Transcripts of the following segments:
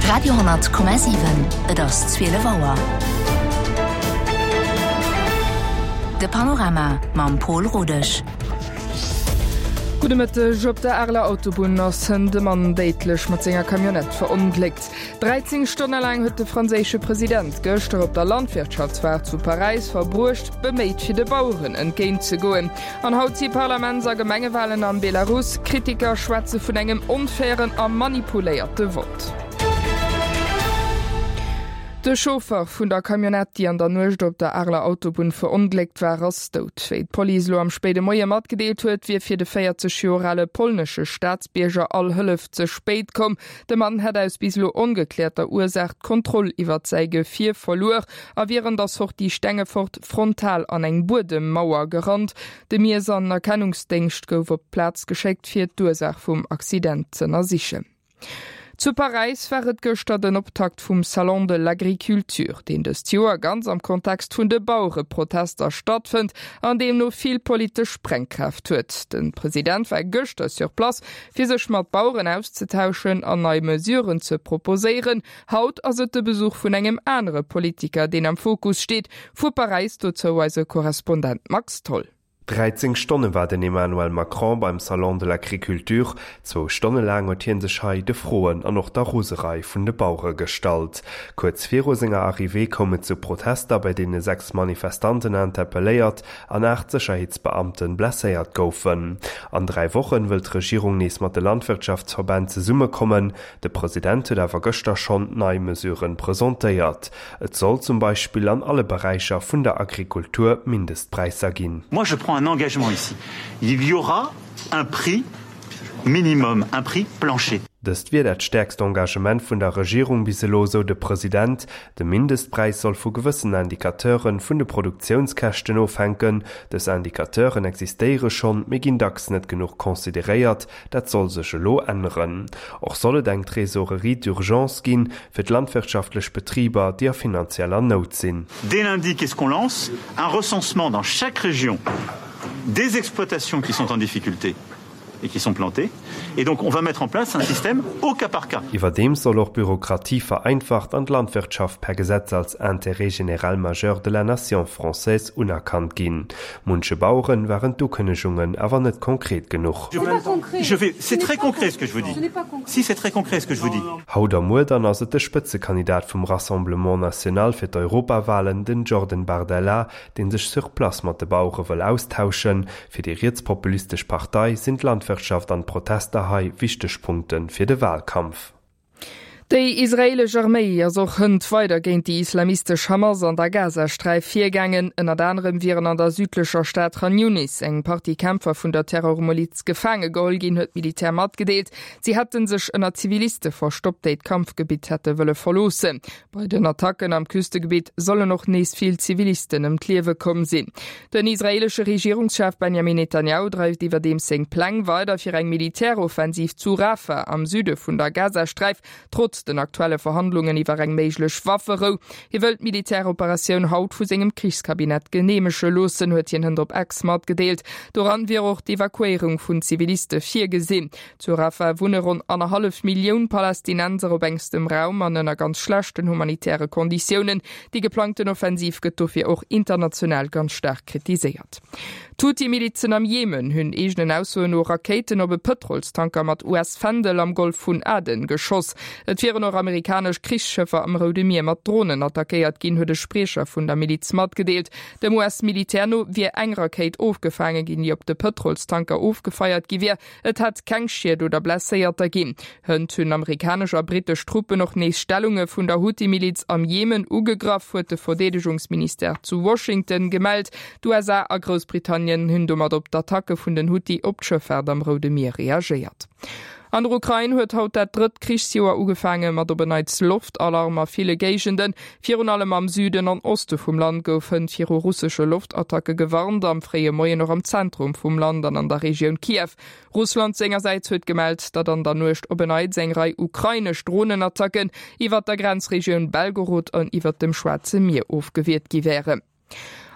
Radio,7 Et ass 12 Auer. De Panorama mam Pol Rodesch. Gudde Mëtteg. Op der Areler Autobunn ass hënt e Mann déidlech mat senger Camionnette verongléckt. 13 Stonne laang huet de franséische President gëschter op der Landwirtschaftsfoire zu Paräis verbruecht, beméit fir de Baueren entgéint ze goen. An haut si Parlaments a Gemengewalen am Belarus. Kritiker schwätze vun engem onfairen a manipuléierte Vott. De Chauffer vun der Camionnette, déi an der Nuecht op der Areler Autobunn verongléckt war, ass dout. Wéi d'Police elo am spéide Moie matgedeelt huet, wier fir de 40 Joer ale polnesche Staatsbierger all Hëllef ze spéit komm. De Mann hätt aus bis elo ongekläerter Ursaach d'Kontroll iwwert säi Gefier verluer a wier an der Sortie Stengefort frontal an eng Buedemmauer gerannt. De Miess an Erkennungsdéngscht gouf op d'Plaz geschéckt, fir d'Ursaach vum Accident z'ënnersichen. Zu Paräis war et gëschter den Optakt vum Salon de l'Agriculture, deen dëst Joer ganz am Kontext vun de Bauereprotester stattfënnt an deemno vill politesch Sprengkraaft huet. De President war gëschter sur place, fir sech mat Baueren auszetauschen an nei Mesuren ze proposéieren. Haut ass et de Besuch vun engem anere Politiker, deen am Fokus steet. Vu Paräis dozou eise Korrespondent Max Tholl. 13 Stonne war den Emmanuel Macron beim Salon de l'Agriculture. Zwou Stonne laang huet hie sech hei de Froen an och der Roserei vun de Bauere gestallt. Kuerz viru senger Arrivée koum et zu Protester, bei deene 6 Manifestanten interpelléiert an 8 Sécherheetsbeamte blesséiert goufen. An 3 Wochen wëll d'Regierung nees mat de Landwirtschaftsverbänn zesummekommen. De President huet awer gëschter schonn nei Mesuren presentéiert. Et soll zum Beispill an alle Beräicher vun der Agrikultur Mindestpräisser ginn. Moi je prends un engagement ici, il y aura un prix minimum, un prix plancher. Dëst wier dat stäerkst Engagement vun der Regierung bis elo, sou de President. De Mindestpräis soll vu gewëssen Indicateuren vun de Produktiounskäschten ofhänken. Dës Indicateuren existéiere schonn, mee ginn dacks net genuch consideréiert. Dat soll sech elo änneren. Och soll et eng Trésorerie d'urgence ginn, fir d'landwirtschaftlech Betriber, déi a finanzieller Nout sinn. Dès lundi, qu'est-ce qu'on lance? Un recensement dans chaque région des exploitations qui sont en difficulté et qui sont plantées. Et donc on va mettre en place un système au cas par cas. Iwwerdeems soll och d'Bürokratie vereinfacht an d'Landwirtschaft per Gesetz als Intérêt général majeur de la nation française unerkannt ginn. Munche Baueren waren d'Ukënnegungen awer net konkret genuch. Haut a muer dann ass et de Spëtzekandidat vum Rassemblement National fir d'Europawalen, den Jordan Bardella, dee sech sur place mat de Bauere wëll austauschen. Fir déi rietspopulistesch Partei sinn d'Landwirtschaft an d'Protester hei wichteg Punkte fir de Walkampf. Déi israeelesch Arméi ass och hënt weider géint déi islamistesch Hamas an der Gazasträif virgaangen. Ënnert anerem wieren an der südlecher Stad Chan Yunis eng Partie Kämpfer vun der Terrormiliz gefaange geholl ginn, huet d'Militär matgedeelt. Si hätte sech ënner Ziviliste verstoppt, déi d'Kampfgebitt hätte wëlle verloossen. Bei den Attacken am Küstegebitt sollen och nees vill Zivilisten ëm d'Liewe komm sinn. Den israeelesche Regierungschef Benjamin Netanjahu dreift iwwerdeems seng Pläng weider fir eng Militäroffensiv zu Rafah am Süde vun der Gazasträif, trotz den aktuelle Verhandlungen iwwer eng méiglech Wafferou. Hie wëll d'Militäroperatioun haut vu sengem Krichskabinett geneemege loossen, huet hien hënt op X matgedeelt. Doran wier och d'Evakuéierung vun Ziviliste virgesinn. Zu Rafah wunne ronn annerhallef Millioun Palästinenser op engstem Raum an ënner ganz schlechten humanitäre Konditiounen. Déi geplangten Offensiv gëtt dofir och international ganz staark kritiséiert. D'Huthi-Milizen am Jemen hunn eegenen Aussoen no Rakéiten op e Pëtrolstanker mat US-Fändel am Golf vun Aden geschoss. Et wieren och amerikanesch Krichsschëffer am Roude Mier mat Dronen attackéiert ginn, huet e Spriecher vun der Miliz matgedeelt. Dem US-Militär no wier eng Rakéit ofgefaange ginn, déi op de Pëtrolstanker ofgefeiert gi wier. Et hätt keng Schied oder Blesséierter ginn. Hënt hunn amerikanesch a brittesch Truppen och nees Stellunge vun der Huthi-Miliz am Jemen ugegraff, huet de Verdeedegungsministère zu Washington gemellt. D'USA a Groussbritannien hunn domat op d'Attacke vun den Huthi op d'Schëffaart am Roude Mier reagéiert. An der Ukrain huet haut dat drëtt Krichsjoer ugefaange mat op en Neits Loftalarm a ville Géigenden. Virun allem am Süden an Oste vum Land gouf hënt viru russesche Loftattacke gewarnt, am fréie Moien och am Zentrum vum Land an an der Regioun Kiew. Russland sengersäits huet gemellt, datt an der Nuecht op en Neits eng Rei ukrainesch Dronenattacken iwwert der Grenzregioun Belgorod an iwwert dem Schwaarze Mier ofgewiert gi wären.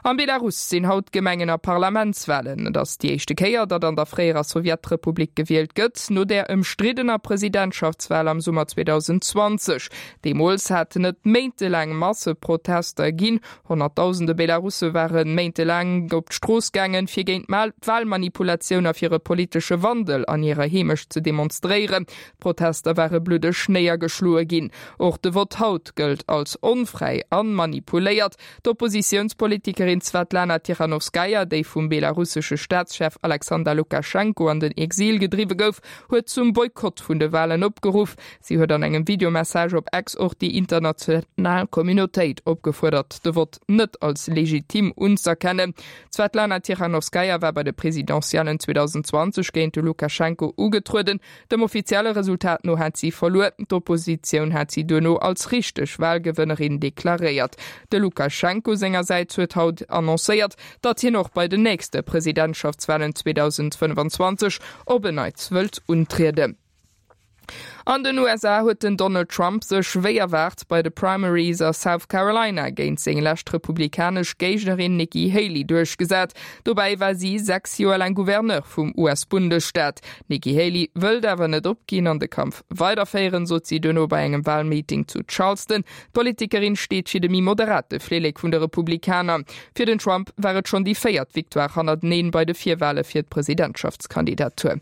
Am Belarus sinn haut Gemengen a Parlamentswalen. Et ass déi éischte Kéier, datt an der fréierer Sowjetrepublik gewielt gëtt, no där ëmstriddener Presidentschaftswal am Summer 2020. Deemools haten et méintelaang Masseprotester ginn. Honnertdausende Belarusse ware méintelaang op d'Strooss gaangen, fir géint d'Walmanipulatioun a fir e politesche Wandel an hirer Heemecht ze demonstréieren. D'Protester ware bluddeg néiergeschloe ginn. Och de Vott haut gëllt als onfräi a manipuléiert. D'Oppositiounspolitikerin Swatlana Tichanowskaja, déi vum belarussesche Staatschef Alexander Lukaschenko an den Exil gedriwwe gouf, huet zum Boykott vun de Walen opgeruff. Si huet an engem Videomessage op X och déi international Communautéit opgefuerdert, de Vott net als legitim unz'erkennen. D'Swatlana Tichanowskaja war bei de Presidentiellen 2020 géint de Lukaschenko ugetrueden. Dem offizielle Resultat no hat si verluer. D'Oppositioun hat si duerno als richteg Walgewënnerin deklaréiert. De Lukaschenko sengersäits huet haut annoncéiert, datt hien och bei den nächste Presidentschaftswalen 2025 op en Neits wëllt untrieden. An den USA huet den Donald Trump sech wéi erwaart bei de Primaries a South Carolina géint seng lescht republikanesch Géignerin Nikki Haley duerchgesat. Dobäi war si 6 Joer laang Gouverneur vum US-Bundesstaat. D'Nikki Haley wëllt awer net opginn an de Kampf weiderféieren, sot si duerno bei engem Walmeeting zu Charleston. D'Politikerin steet fir de méi moderate Flillek vun de Republikaner. Fir den Trump war et schonn déi véiert Victoire hannerteneen bei de Virwale fir d'Presidentschaftskandidatur.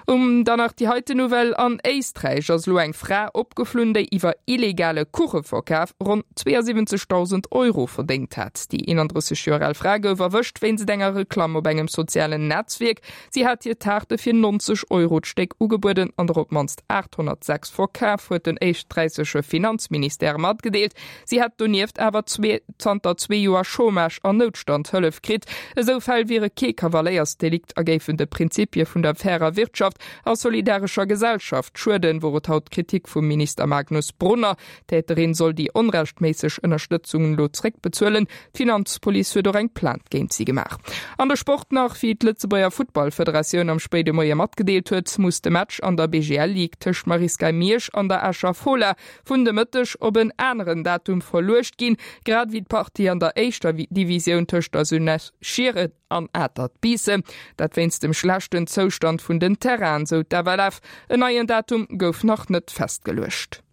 Um dann nach déi heiten Nouvelle, An Éisträich ass elo eng Fra opgeflunn, déi iwwer illegale Kucheverkaf ronn 72.000 Euro verdéngt hat. Déi 31 Joer al Fra gouf erwëscht wéinst enger Reklamm op engem sozialen Netzwierk. Si hat hir Taarte fir 90 Euro d'Stéck ugebueden an der op d'mannst 806 verkaf, huet den éisträichesche Finanzministère matgedeelt. Si hätt donieft awer zanter zwee Joer Chômage an Noutstandhëllef kritt. Esou Fäll wiere kee Kavaléiersdelikt a géifen de Prinzipie vun der fairer Wirtschaft a solidarescher Gesellschaft schueden, wor et haut d'Kritik vum Minister Magnus Brunner. D'Täterin soll déi onrechtméisseg Ënnerstëtzung elo zréckbezuelen. D'Finanzpolice huet och eng Plainte géint si gemaach. An de Sport nach, Wéi d'Lëtzebuerger Futtballfederatioun am spéide Moie matgedeelt huet, muss de Match an der BGL-Ligue tëscht Marisca Miersch an der Escher Fola vun de Mëtteg op en aneren Datum verluecht ginn, grad ewéi d'Partie an der éischter Divisioun tëscht der Jeunesse Schieren an Atert Biissen. Dat wéinst dem schlechten Zoustand vun den Terrainen, sou d'FLF. En neien Datum gouf nach net festgeluecht.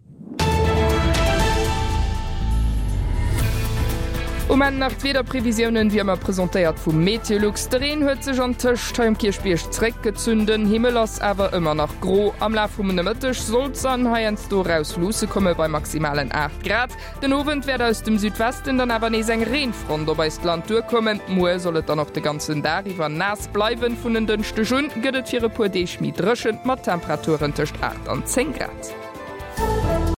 Um Enn nach d'Wiederprevisiounen, wéi ëmmer presentéiert vu Meteolux. De Reen huet sech antëscht hei um Kierchbierg zréckgezunn, den Himmel ass awer ëmmer nach gro. Am Laf vum Nomëtteg soll d'Sonn heiansdo eraus luusse komme bei maximalen 8 Grad. Den Owend wäert aus dem Südwesten dann awer nees eng Reenfront op eist Land duerkommen. Muer soll et dann och de ganzen Dag iwwer naass bleiwen. Vun en Dënschdeg un gëtt et fir e puer Deeg méi dréchen, mat Temperaturen tëscht 8 an 10 Grad.